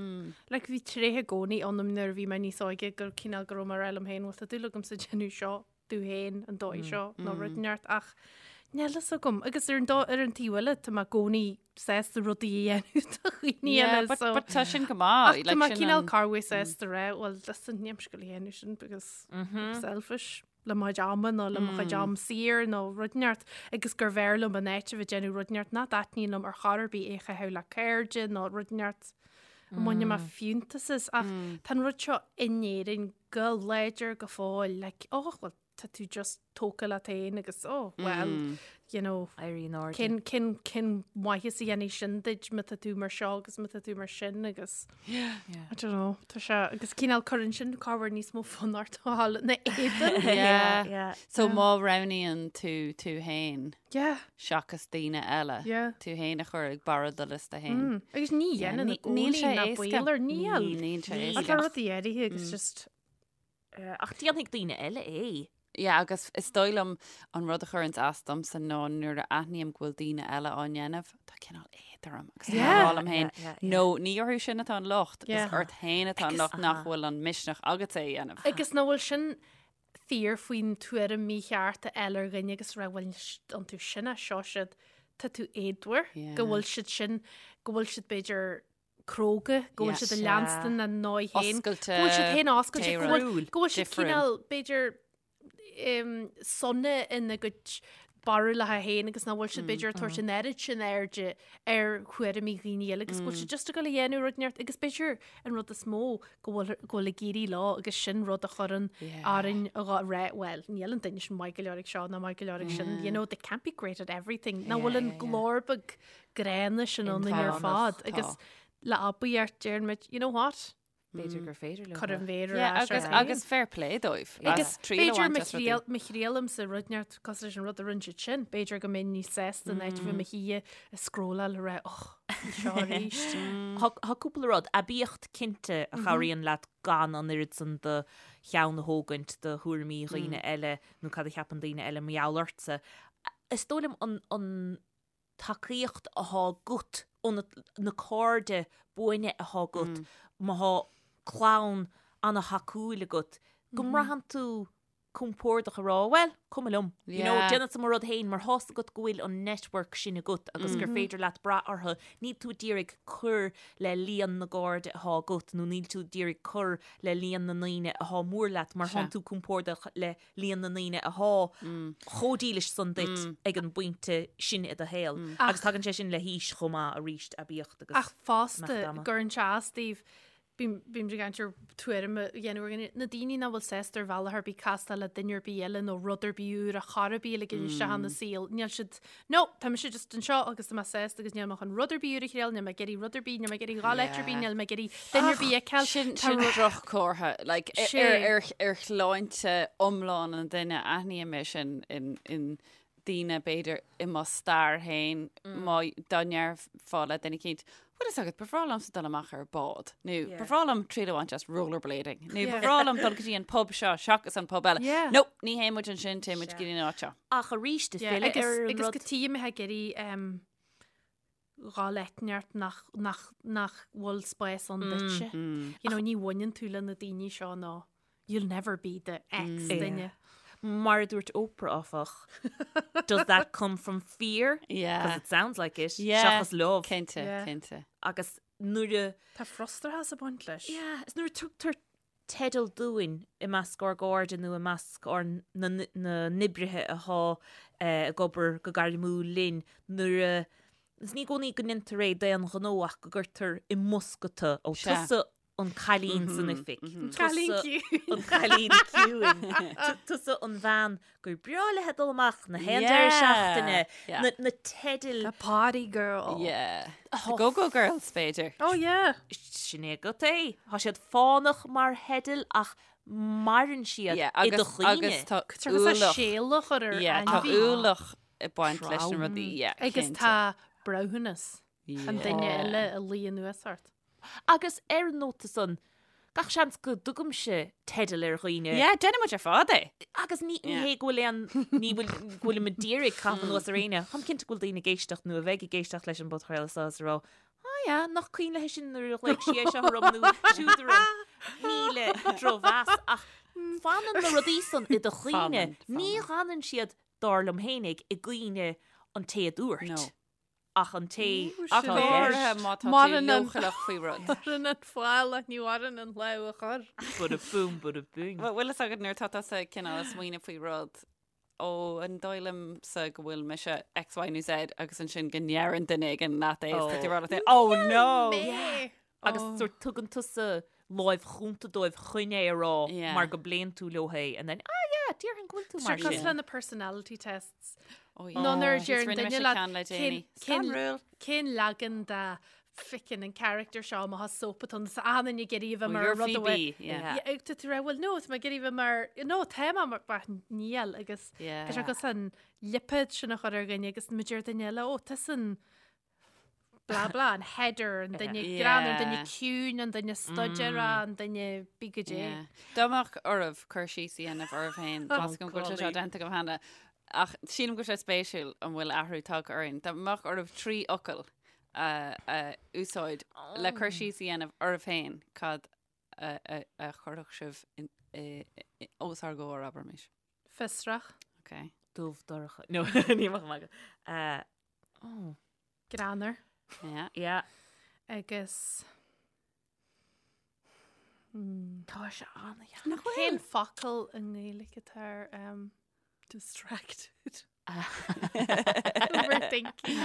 Like bhí tréith i gcónaí ionam nuair a bhí mé níos óige gur cineál go raibh mé ag rá liom féin, bhuel tá dúil agamsa déanamh seo domh féin an dóigh seo nó rud inteacht ach níl fhios agam. Agus ar an dó- ar an taobh eile tá mé i gcónaí sásta rudaí a dhéanamh do dhaoine Yeah, eile but, so but tá sin go maith. Ach tá mé cineál corruair sásta rá well listen níl mise ag goil a dhéanamh sin because I'm selfish le mo chuid ama nó le mo chuid am saor nó rud inteacht agus gurbh fhearr liom an áit a bheith ag déanamh rud inteacht nach dtaitníonn liom ar chor ar bith é a chaitheamh le cairde nó rud inteacht a mbaineann mé fiúntas as ach tá an rud seo in Éirinn go láidir go fóill like oh well tá tú just tógtha leat féin agus oh well you know Éirí in airde. cén cén cén maitheas a dhéanfaidh sin duit má tá tú mar seo agus má tá tú mar sin agus I don't know tá sé agus cineál cuireann sin corruair níos mó fonn ort a dhul ina éadan. Yeah. Yeah. So má roghnaíonn tú tú féin Yeah. seachas daoine eile, Yeah. tú féin a chur ag barra do liosta féin. Agus ní dhéanann Ní- i níl gcónaí sé ná éasca. baol air, níl. Níl sé Ach tá éasca. rudaí áirithe agus just Ach déanfaidh daoine eile é. Yeah, agus is dóigh liom an rud a chuireanns as domsa ná nuair a aithním go bhfuil daoine eile á ndéanamh, tá cineál éad orm agus tá mé ag rá liom féin, no, ní orthu sin atá an locht, is ort féin atá an locht nach bhfuil an misneach agat é a dhéanamh. Agus nach bhfuil sin fíor faoin tuairim mícheart a fháil ar dhuine agus rá bhuel iontu sin é seo siad, tá tú éadmhar, go bhfuil siad sin, go bhfuil siad b'fhéidir cróga, go bhfuil siad ag leanstan a ndóigh féin, go bhfuil siad féin oscailte, go bhfuil go bhfuil siad cineál b'fhéidir sona ina gcuid barúlacha féin agus nach bhfuil siad b'fhéidir ag tabhairt an oiread sin airde ar thuairimí dhaoine eile agus go bhfuil siad just ag dul a dhéanamh rud inteacht agus b'fhéidir an rud is mó go bhfuil go bhfuil ag éirí leo agus sin rud a chuireann orainn a dhá rá well níl an duine sin maith go leor ag seo ná maith go leor ag sin you know they can't be great at everything nach bhfuil an glór beag gránna sin ionainn ar fad agus le abaíocht deireann muid, you know what? B'fhéidir gur féidir leo. Cuir an mhéar ar ais agus, agus fair play dóibh. Agus b'fhéidir má thriailimse rud inteacht cosúil leis an rud a rinne siad sin, b'fhéidir go mbeinn níos sásta in áit a bheith i mo shuí ag scrolláil ag rá och, seo arís. Tá cúpla rud, aibíocht cinnte a chabhraíonn leat gan an oiread san do cheann a thógaint do thuairimí dhaoine eile nó cad a cheapann daoine eile mar gheall ortsa. Is dóigh liom an tacaíocht athá agat ó na cairde buana athá agat, má thá clann ana-thacúil agat, go mbraitheann tú compordach a rá, bhuel, cuma liom, you know, déanfadsa mo rud féin mar thá's agat go bhfuil an network sin agat agus gur féidir leat brath orthu, níl tú ag iarraidh cur le líon na gcairde athá agat nó níl tú ag iarraidh cur le líon na ndaoine athá mór leat mar thánn tú compordach le líon na ndaoine athá chomh dílis san duit ag an bpointe sin i do shaol. Agus tagann sé sin le haois chomh maith arís, aibíocht agus Ach fosta, gcuireann sé as daoibh. Bím ag caint ar tuairim a dhéanamh ar dhaoine, na daoine nach bhfuil sásta ar bhealach ar bith castáil le duine ar bith eile nó rud ar bith úr a chor ar bith a ligean isteach ina saol, níl siad, no, tá mise just anseo agus tá mé sásta agus níl mé chun rud ar bith úr a thriail, níl mé ag iarraidh rud ar bith, níl mé ag iarraidh dhul áit ar bith, níl mé ag iarraidh duine ar bith a fheiceáil. Sin sin droch-chomhartha, like, ar ar ar shláinte iomlán an duine, aithním é sin in in daoine b'fhéidir i mo stair féin má dá ndéarfá le duine eicínt, bhfuil fhios agat, ba bhreá liomsa dul amach ar bád, nó ba bhreá liom triail a bhaint as rollerblading, nó ba bhreá liom dul go dtí an pub seo seachas an pub eile. No, ní théann muid ansin, téann muid go dtí an áit seo. Ach arís, ag filleadh ar an rud. Agus go dtí mé ag iarraidh dhul áit inteacht nach, nach, nach bhfuil spás ann duitse. You know, ní bhaineann tú le na daoine seo nó you'll never be the X duine. Mar a dúirt Oprah, áfach, does that come from fear? Yeah. Because it sounds like it. Yeah. Seachas love. Cinnte, Yeah. cinnte. Agus nuair a... Tá frustrachas ag baint leis. Yeah, is nuair a tugtar teideal dúinn i measc ár gcairde nó i measc ár na n-oibrithe atá ag obair go gairmiúil linn nuair a, is ní i gcónaí go ndéantar é d'aon ghnó ach go gcuirtear i mbosca tú, ó tusa an cailín san oifig, Cailín tusa ciúin. an cailín ciúin, tusa an bhean gur breá léi dul amach na haon deireadh seachtaine, na na teidil. The party girl. Yeah. The go-go girls, b'fhéidir. Oh yeah. Sin é agat é. Tá siad fánach mar theidil ach maireann siad Yeah, i do agus, chuimhne. agus tá Tá ualach. séala a chur ar Yeah, tá ainmhí. ualach ag baint leis na rudaí. Yeah, Agus cinnte. tá breithiúnas an duine Yeah. eile a luí anuas ort. Agus ar an nóta san, gach seans go dtugaimse teideal ar dhaoine. Yeah, déanann muid ar fad é. Agus ní Yeah. hé go bhfuil aon, ní bhfuil, go bhfuilim ag iarraidh caitheamh anuas ar éinne. Táim cinnte go bhfuil daoine ag éisteacht nó a bheidh ag éisteacht leis an bpodchraoladh seo is ag rá, ah yeah, nach cuimhin léi sin nuair a ghlaoigh sí é seo orm nó siúd orm. Ní le drochmheas ach fanann na rudaí san i do chuimhne. Fanann, Ní fanann. fhanann siad, dar liom fhéinig, i gcuimhne an té a dúirt. No. Ach an té Ach atá go i háirithe gceist. má tá tú Maireann an- leochaileach faoi rud. Maireann an fál ach ní mhaireann an lámh a chuir. Bada boom, bada bing. Bhuel, bhfuil fhios agat nuair atá tusa cineál ag smaoineamh faoi rud, ó, an dóigh liomsa go bhfuil mise X, Y nó Z agus ansin go ndeireann duine éigin leat é, is tá tú ag rá leat féin, oh no! Mé! Agus sort tugann tusa láimh chúnta dóibh chun é a rá Yeah. mar go bpléann tú leo é and then, ah yeah, déarfainn go bhfuil tú mar Sure, cosúil sin. le na personality tests. Oh, yeah. Nó nuair a Just deir rinne duine mise leat ceann le cén- déanaí. cén- Scanrúil. cén leagan de ficin an character seo má tá soap atá ann, achan duine ag iarraidh a bheith Oh, mar you're rud a bhfuil- Phoebe, yeah. Yeah, ag tú tú rá, well no, tá mé ag iarraidh a bheith mar, no, tá mé mar, bah, níl agus Yeah. tá sé cosúil an lipéad sin a chur ar dhuine agus má deir duine eile, ó, tusa an blah blah, an Heather, an duine greannmhar, an duine ciúin, an duine staidéarach, an duine bí go dé. Dá mbeadh oraibh cur síos a dhéanamh oraibh féin, tá 's agam go bhfuil sé seo déanta agam cheana, ach sílim go bhfuil sé spéisiúil an bhfuil athrú tagtha orainn. Dá mbeadh oraibh 3 fhocal a úsáid le cur síos a dhéanamh oraibh féin, cad a chuirfeadh sibh os ár gcomhair, abraimis? Fiosrach. Ok. Dubh dorcha. No, ní bheadh maith agat. Oh. Greannmhar. Yeah. Yeah. Agus. Tá sé an-dheacair. Cén focal i nGaeilge atá ar um, distracted? Overthinking.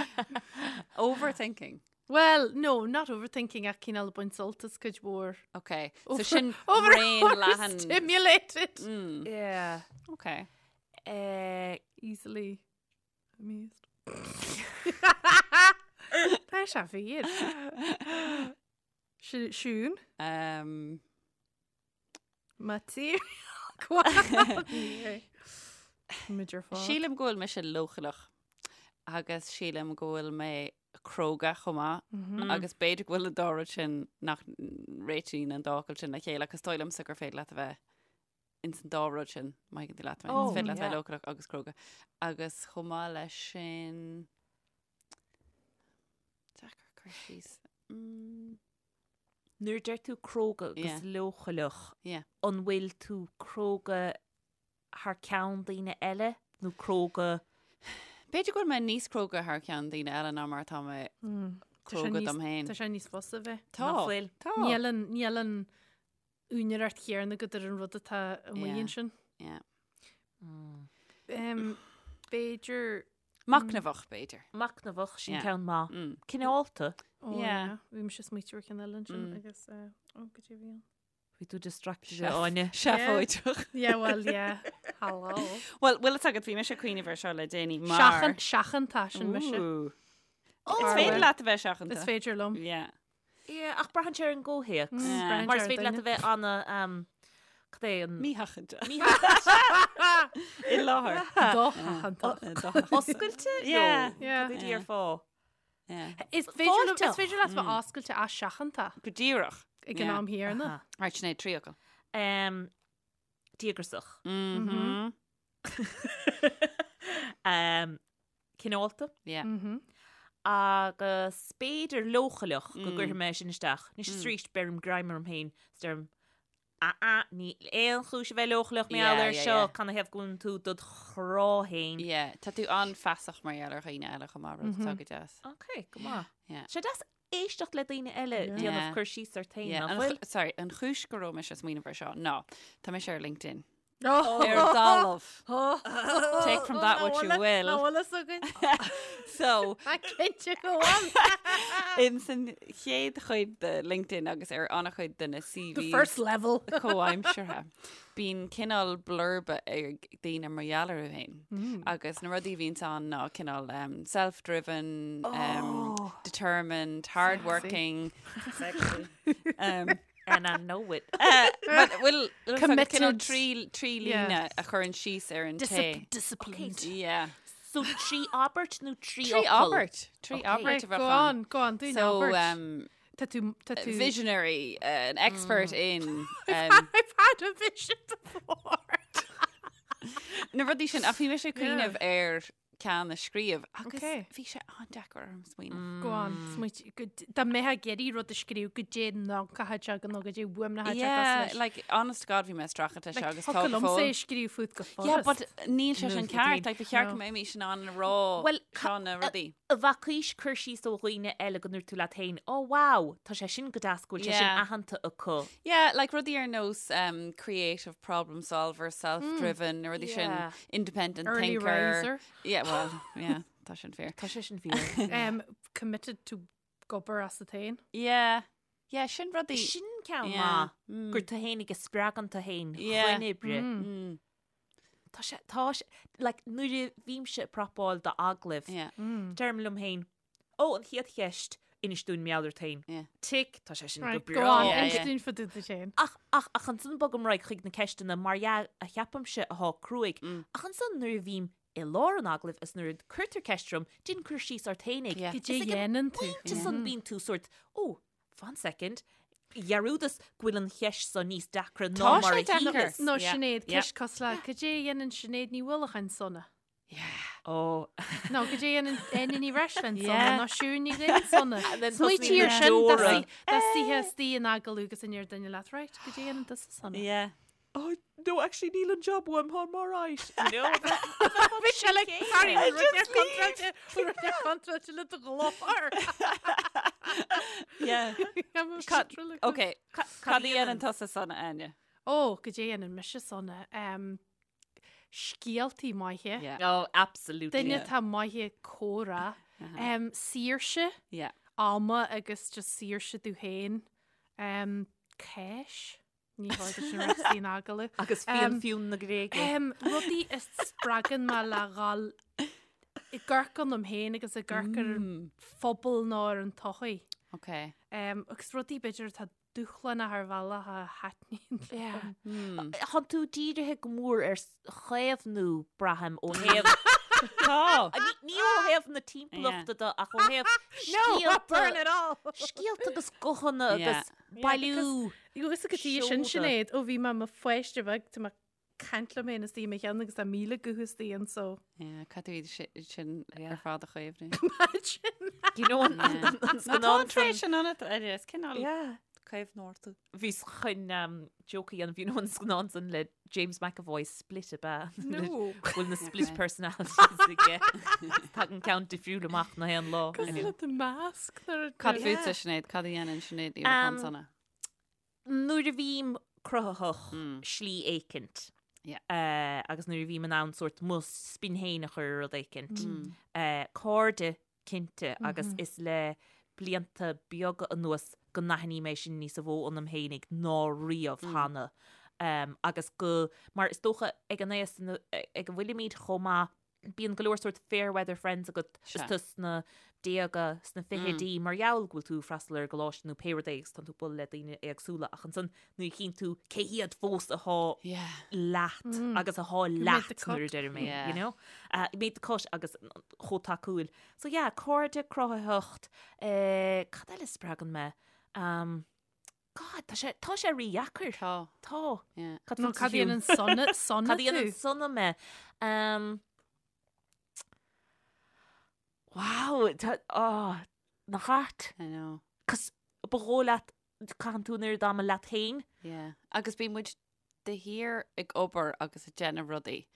Overthinking. Well, no, not overthinking ach cineál baint sult as cuid mhór. Ok. So Over- sin over, raon leathan. Overstimulated. Mm. Yeah. Ok. Eh, Easily amused. Tá sé fíor. Siún? Um, Material. Muid ar fad. Sílim go bhfuil mise leochaileach agus sílim go bhfuil mé cróga chomh maith Mhm. agus b'fhéidir go bhfuil an dá rud sin nach réitíonn an dá fhocal sin le chéile agus dóigh liomsa gur féidir leat a bheith ins an dá rud sin, má thuigeann tú leat mé. Oh, Is féidir leat yeah. bheith leochaileach agus cróga. Agus chomh maith leis sin deacair cur síos. Mm. Nuair a deir tú cróga agus Yeah. leochaileach, Yeah. an bhfuil tú cróga thar ceann daoine eile nó cróga B'fhéidir go bhfuil mé níos cróga thar ceann daoine eile ná mar atá mé Mm. Tá sé cróga níos- dom féin. Tá sé níos fusa bheith. Tá. Nach bhfuil? Tá. Níl an níl an úinéireacht chéanna agat ar an rud atá amuigh Yeah. ansin. Yeah. Um, b'fhéidir. Machnamhach, b'fhéidir. Machnamhach, sin ceann maith. Cineálta. Oh, yeah. Bhí mise ag smaoitiú ar cheann eile ansin agus ó, goidé a bhí ann. Bhí tú distracted Áine. Seafóideach. Yeah, well, yeah. Hello. Well, bhfuil fhios agat, bhí mise ag cuimhneamh ar seo le déanaí mar... Seachan, seachanta, sin mise. Ooh. Is féidir leat a bheith seachanta. Is féidir liom. Yeah. Yeah, ach braitheann sé ar an gcomhthéacs. Yeah. Mar is féidir leat a bheith ana, um, cad é an... Mísheachanta. Mísheachanta. I láthair. Dosheachanta. Oscailte? Yeah. Yeah. Cad é déarfá? Yeah. Is féidir liom- Fáilteach. is féidir leat bheith oscailte is seachanta Go díreach. ag an am chéanna. Right, Sinéad, tríocha. Um, díograiseach. Mhm. Um, cineálta. Yeah. Mhm. Agus b'fhéidir leochaileach go gcuirfidh mé sin isteach. Anois is arís beirim greim orm féin is deirim ah ah níl aon chúis a bheith leochaileach mar gheall Yeah, air yeah, seo, yeah. canathaobh go bhfuileann tú dod chrá féin. Yeah, tá tú an-fheasach mar gheall ar dhaoine eile chomh maith, rud atá go deas. Ok, go maith. Yeah. Sé deas éisteacht le daoine eile Yeah. déanamh cur síos ort féin, Yeah, nach an bhfuil? chu- sorry, an chúis go raibh mise ag smaoineamh air seo ná tá mise ar LinkedIn. Oh. Ar talamh. Take from that what you will. Ná bhfuil fhios againn. So, Tá cinnte go bhfuil. in san chéad chuid de LinkedIn agus ar an-chuid de na The CVs first level. comhaimseartha, bíonn cineál blurb ag daoine mar gheall orthu féin. Agus na rudaí a bhíonns ann ná cineál um, self-driven, um, determined, hardworking. Um, And I know it. uh, but bhfuil Committed. cineál trí trí Yeah. líne a chuireann síos ar an té. Discip- Disciplined. Yeah. So trí abairt nó trí Trí fhocal? abairt. Trí Okay. abairt Right, a bheadh go ann. on, go on, dúinn So, abairt. um, Tá tú, tá tú. visionary, uh, an expert in um, I've had a vision before. na rudaí sin ach bhí mise ag cuimhneamh ar ceann a scríobh agus Okay. bhí sé an-deacair orm smaoineamh. Go on, smaoit, go d- dá mbeifeá ag iarraidh rud a scríobh goidé nocatha agam nó goidé uaim na Yeah, like honest to God bhí mé ag streachailt leis seo agus tá Thiocfadh go liomsa é fóill. a scríobh fút go Yeah, furast. but níl sé sin Níl ceart, like, ba cheart No. go mbeimis in ann a rá Well, seo na rudaí. A bhfacaís cur síos ó dhaoine eile go ndúirt tú leat féin, oh wow, tá sé sin go deas go bhfuil sé sin Yeah. aitheanta acu. Yeah, like rudaí ar nós um, creative problem solver, self-driven, na rudaí sin, Yeah. independent Early thinker. riser. Yeah, well, yeah, tá sin fíor. Tá sé sin fíor. Um, committed to gobar as a féin. Yeah, yeah, sin rudaí. Sin ceann Yeah. maith gur tú féin ag spreagadh tú féin Yeah. chun oibre. Mm. Tá sé, tá sé, like, nuair a bhímse ag prapáil do agallaimh, Yeah. deirim liom féin, ó, an chéad cheist, inis dúinn mar gheall ort féin. Yeah. Tick, tá sé sin go Right, go breá. on, Yeah, inis yeah. dúinn fá dtaobh duit féin. Ach, ach, ach ansan bogaim ar aghaidh chuig na ceisteanna mar dhea a cheapaimse athá cruaidh. Ach ansan nuair a bhím i lár an agallaimh is nuair a cuirtear ceist orm, déan cur síos ort fhéinig. Yeah. Goidé a dhéanann tú. Pointe san bíonn tú sórt, ó, fan second, dhearúdas go bhfuil an cheist so níos deacra ná Tá mar sé a deacair. shíleas. Nó Yeah. Sinéad, Yeah. ceist cosúil le, goidé a dhéanann Sinéad Ní Uallacháin sona. Yeah. Ó, Nó goidé a dhéanann Áine Ní Bhreisleáin sona, Yeah. nó Siún Ní Dhuinn sona. And then Smaoitigh tosnaíonn ar na sin, deora. dá suífeá istigh in agallamh agus a ndéarfadh duine leat, right, goidé a dhéanann tusa sona. Yeah. Oh, no, actually, níl an job uaim, táim alright. You know? Bhí sé like, sorry, rud ar contráilte, rud ar contráilte le do ghlór. Yeah. Cad, Okay, cad a dhéanann tusa sona, Áine? Ó, goidé a dhéanann mise sona. Um, scéaltaí maithe. Yeah. Oh, absolutely. Duine atá maith ag comhrá. Um, saoirse, Yeah. ama agus just saoirse tú féin. Um, cáis. Ní bhfuil sin rud in agallamh. Agus fíon Um, fiún na Gréige. Um, rudaí a spreagann mé le dhul ag amharc ionam féin agus ag amharc ar an phobal nó ar an tsochaí. Okay. Um, agus rudaí b'fhéidir atá dúshlánach ar bhealach a thaitníonn liom. Mm. Tá tú dírithe go mór ar chaomhnú braithim ó thaobh Tá. Ní ó thaobh na timpeallachta de ach ó thaobh No, burn it all! scéalta agus guthanna Yeah. agus bailiú. Agus go dtí sin Seoda. Sinéad ó bhí mé i mo pháiste bheag tá mé ag caint liom féin istigh i mo cheann agus tá 1000 guth istigh anso. Yeah, caithfidh tú iad sin ar fad a chaomhnú. Imagine. You know, an Tá an scannán tréis sin ionat, Eddie, is cineál Yeah. caomhnóir tú. Bhíos chun joke a dhéanamh, you know, an scannán san le James McAvoy Split ab ea? No. Bhfuil na split Okay. personalities aige. Tagann ceann difriúil amach na haon lá. Cosúil le The Mask nuair a Cad deir- fútsa Sinéad, cad a dhéanann Sinéad Ní Uallacháin sona? Nuair a bhím cruthaitheach Mm. slí éicint. Yeah. Agus nuair a bhím in ann sórt mo spin féin a chur ar rud éicint. Cairde, cinnte, agus is le blianta beaga anuas go n-aithním é sin níosa mhó ionam féinig ná riamh cheana. Agus go, mar is dócha ag an aos ag a bhfuilimid chomh maith, bíonn go leor sórt fair weather friends agat is tú sna déaga, sna fichidí, mar gheall go bhfuil tú ag freastal ar an gcoláiste nó pé rud é agus tánn tú ag bualadh le daoine éagsúla ach ansan nuair a chíonn tú cé hiad fós athá leat agus athá leat nuair a deirim é, you know? Made the cut agus chomh tacúil. So yeah, cairde, cruthaitheacht, cad eile a spreagann mé? God, tá sé, tá sé rídheacair. Tá. Tá. Yeah. Cad Nó fútsa, cad Siún? dhéanann sona, sona Cad dhéanann tú? sona mé? Um, wow, tá, oh, nach ait? I know. Cos ba dhóigh leat, caitheann tú an oiread ama leat féin. Yeah. Agus bíonn muid de shíor ag obair agus ag déanamh rudaí.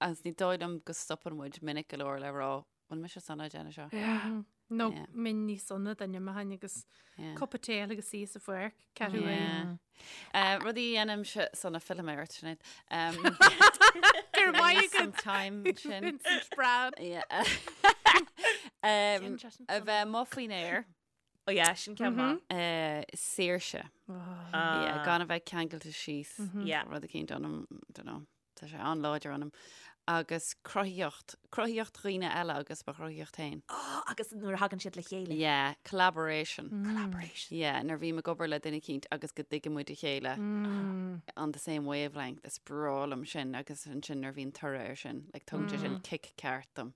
Agus ní dóigh liom go stopann muid minic go leor le rá, bhfuil mise sona ag déanamh seo? Yeah. Nó Yeah. minn níos sona duine maithin agus Yeah. cupa tae agus í sa pháirc, ceathrú Yeah. Rudaí a dhéanaimse sona fillfidh mé ort, Sinéad. Um, Gur maith some time sin. Vincent Brown. Yeah. Um, a bheith amuigh faoin aer. Oh yeah, sin ceann maith. Saoirse. Ah. Yeah, gan a bheith ceangailte síos. Yeah. Rud eicínt ionam, don't know, tá sé an-láidir ionam. Agus cruthaíocht, cruthaíocht dhaoine eile agus mo chruthaíocht féin. Oh, agus nuair a thagann siad le chéile. Yeah, collaboration. Collaboration. Yeah, nuair a bhím ag obair le duine eicínt agus go dtuigeann muid a chéile on the same wavelength, is breá liom sin agus ansin nuair a bhíonn toradh air sin, like tugann sé sin kick ceart dom.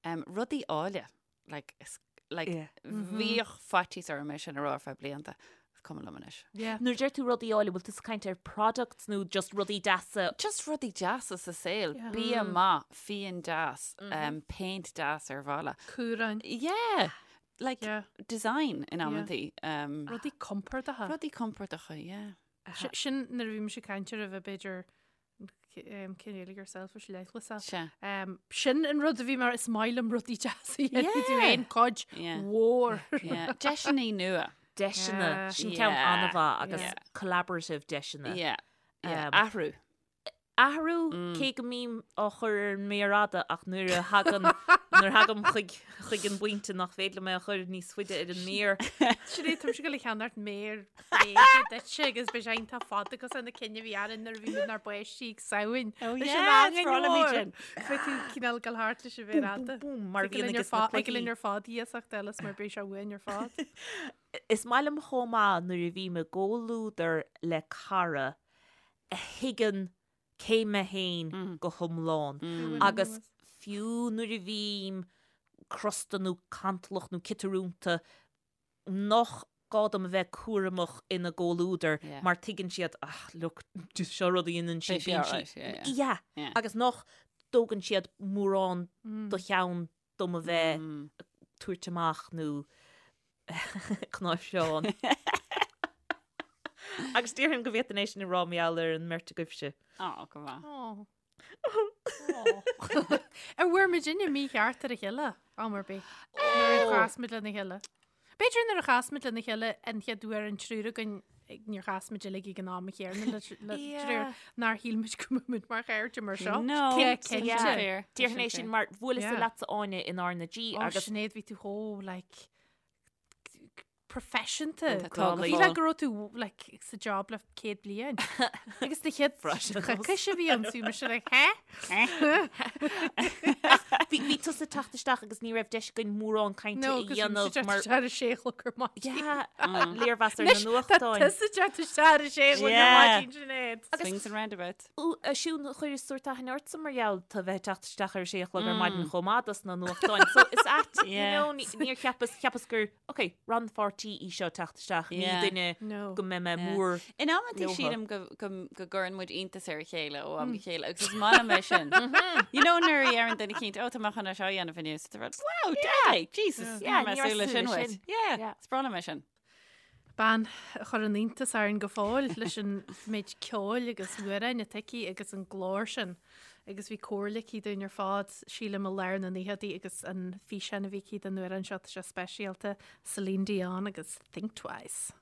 Um, rudaí áille. Like, is, like, Yeah. bhíodh faitíos orm é sin a rá ar feadh blianta. Is cuma liom anois. Yeah. Nuair a deir tú rudaí áille, bhfuil tú ag caint ar products nó just rudaí deasa? Just rudaí deasa sa saol. Yeah. Bia maith, fíon deas, um, péint deas ar bhalla. Cúráin. Yeah. Like, Yeah. design in amantaí. Um, Rudaí compordacha. rudaí compordacha, yeah. Sin nuair a bhí mise ag caint ar a bheith b'fhéidir cineál yourself leithleasach. Sea. Sin an rud a bhí mar is maith liom rudaí deasa a dhéanamh tú Yeah. féin cuid Yeah. mhór. Yeah. Deiseanna nua. Deiseanna, Yeah. sin ceann Yeah. an-mhaith agus Yeah. collaborative deiseanna. Yeah. Yeah. Athrú. Athrú, cé go mbím á chur ar an méar fhada ach nuair a thagann, nuair a thagaim chuig, chuig an bpointe nach féidir liom é a chur níos faide ar an méar. Sin é, táimse ag dul a cheannacht méar bréige duitse agus beidh sé iontach fada cosúil na cinn a bhí againn nuair a bhí muid inár bpáistí ag Samhain. Oh Leis yeah, an is angain breá liom iad mhór. sin. Beidh tú cineál ag dul thart leis an mhéar Búm, fhada. búm, búm, mar a Ag dul bhíonn linn ar aige sna fad, ag dul cluichí. linn ar fad iasacht eile is mar beidh sé uainn ar fad. Is maith liom chomh maith nuair a bhím i gcomhluadar le cara a thuigeann cé mé féin go hiomlán agus fiú nuair a bhím crosta nó cantalach nó ciotarúnta nach gá dom a bheith cúramach ina gcomhluadar mar tuigeann siad ah look seo rud a dhéanann sí bíonn sí yeah agus nach dtógann siad mórán do cheann dom a bheith ag tabhairt amach nó cnáimhseán. Agus déarfainn go bhféadfainn é sin a rá mar gheall ar an mbeirt agaibhse. Á, go maith. Ó. Ar bhfuair muidinne mícheart ar a chéile am ar bith? Nuair a chas muid lena chéile. B'fhéidir nuair a chas muid lena chéile an chéad uair an triúr againn níor chas muid uilig ag an am chéanna le triúr nár shíl muid go mbeadh muid mar chairde mar seo. No, Cinnte. Fair. Déarfainn é sin mar bhuaileas-sa Yeah. leatsa Áine in R na G Ó, agus Sinéad, bhí tú chomh like proifisiúnta. Tá go Bhí fóill. le go raibh tú like sa job le 100 bliain. Agus na chéad coicís a bhí ann bhí mise like hé? Bhí bhí tusa ag teacht isteach agus ní raibh deis againn mórán cainte No, a agus bhí mise dhéanamh ag teacht mar isteach ar a sé a chlog ar maidin. Yeah, léirmheas ar na Anois, tá nuachtáin. tusa ag teacht isteach ar a sé a chlog ar Yeah. maidin, Sinéad. Swings and roundabouts. Ó, a Siún, chuireas sórt aithne ortsa mar gheall tú bheith ag teacht isteach ar a sé a chlog ar maidin chomh maith dos na nuachtáin. So is ait, you Yeah. know, ní- níor cheapas, cheapas gur, ok, rannpháirtí í seo teacht isteach, ní Yeah. duine No. go mbeidh mé Yeah. mór In amantaí leothu. sílim go, go, go gcuireann muid iontas ar a chéile ó am go chéile agus is maith liom é sin. You know nuair a deireann duine eicínt, oh, tá mé chun é seo a dhéanamh inniu. So tá rud, wow, deadly, Jesus, Yeah, níor ní mé súil raibh leis sin súil leis uait. sin. Yeah, Yeah. is breá liom é sin. Bean a chuireann iontas orainn go fóill leis an méid ceoil agus amhráin atá aici agus an glór sin. Agus bhí comhairle aici dúinn ar fad, sílim i lár na naochadaí agus an físeán a bhí aici don amhrán seo, tá sé speisialta, Celine Dion agus Think Twice.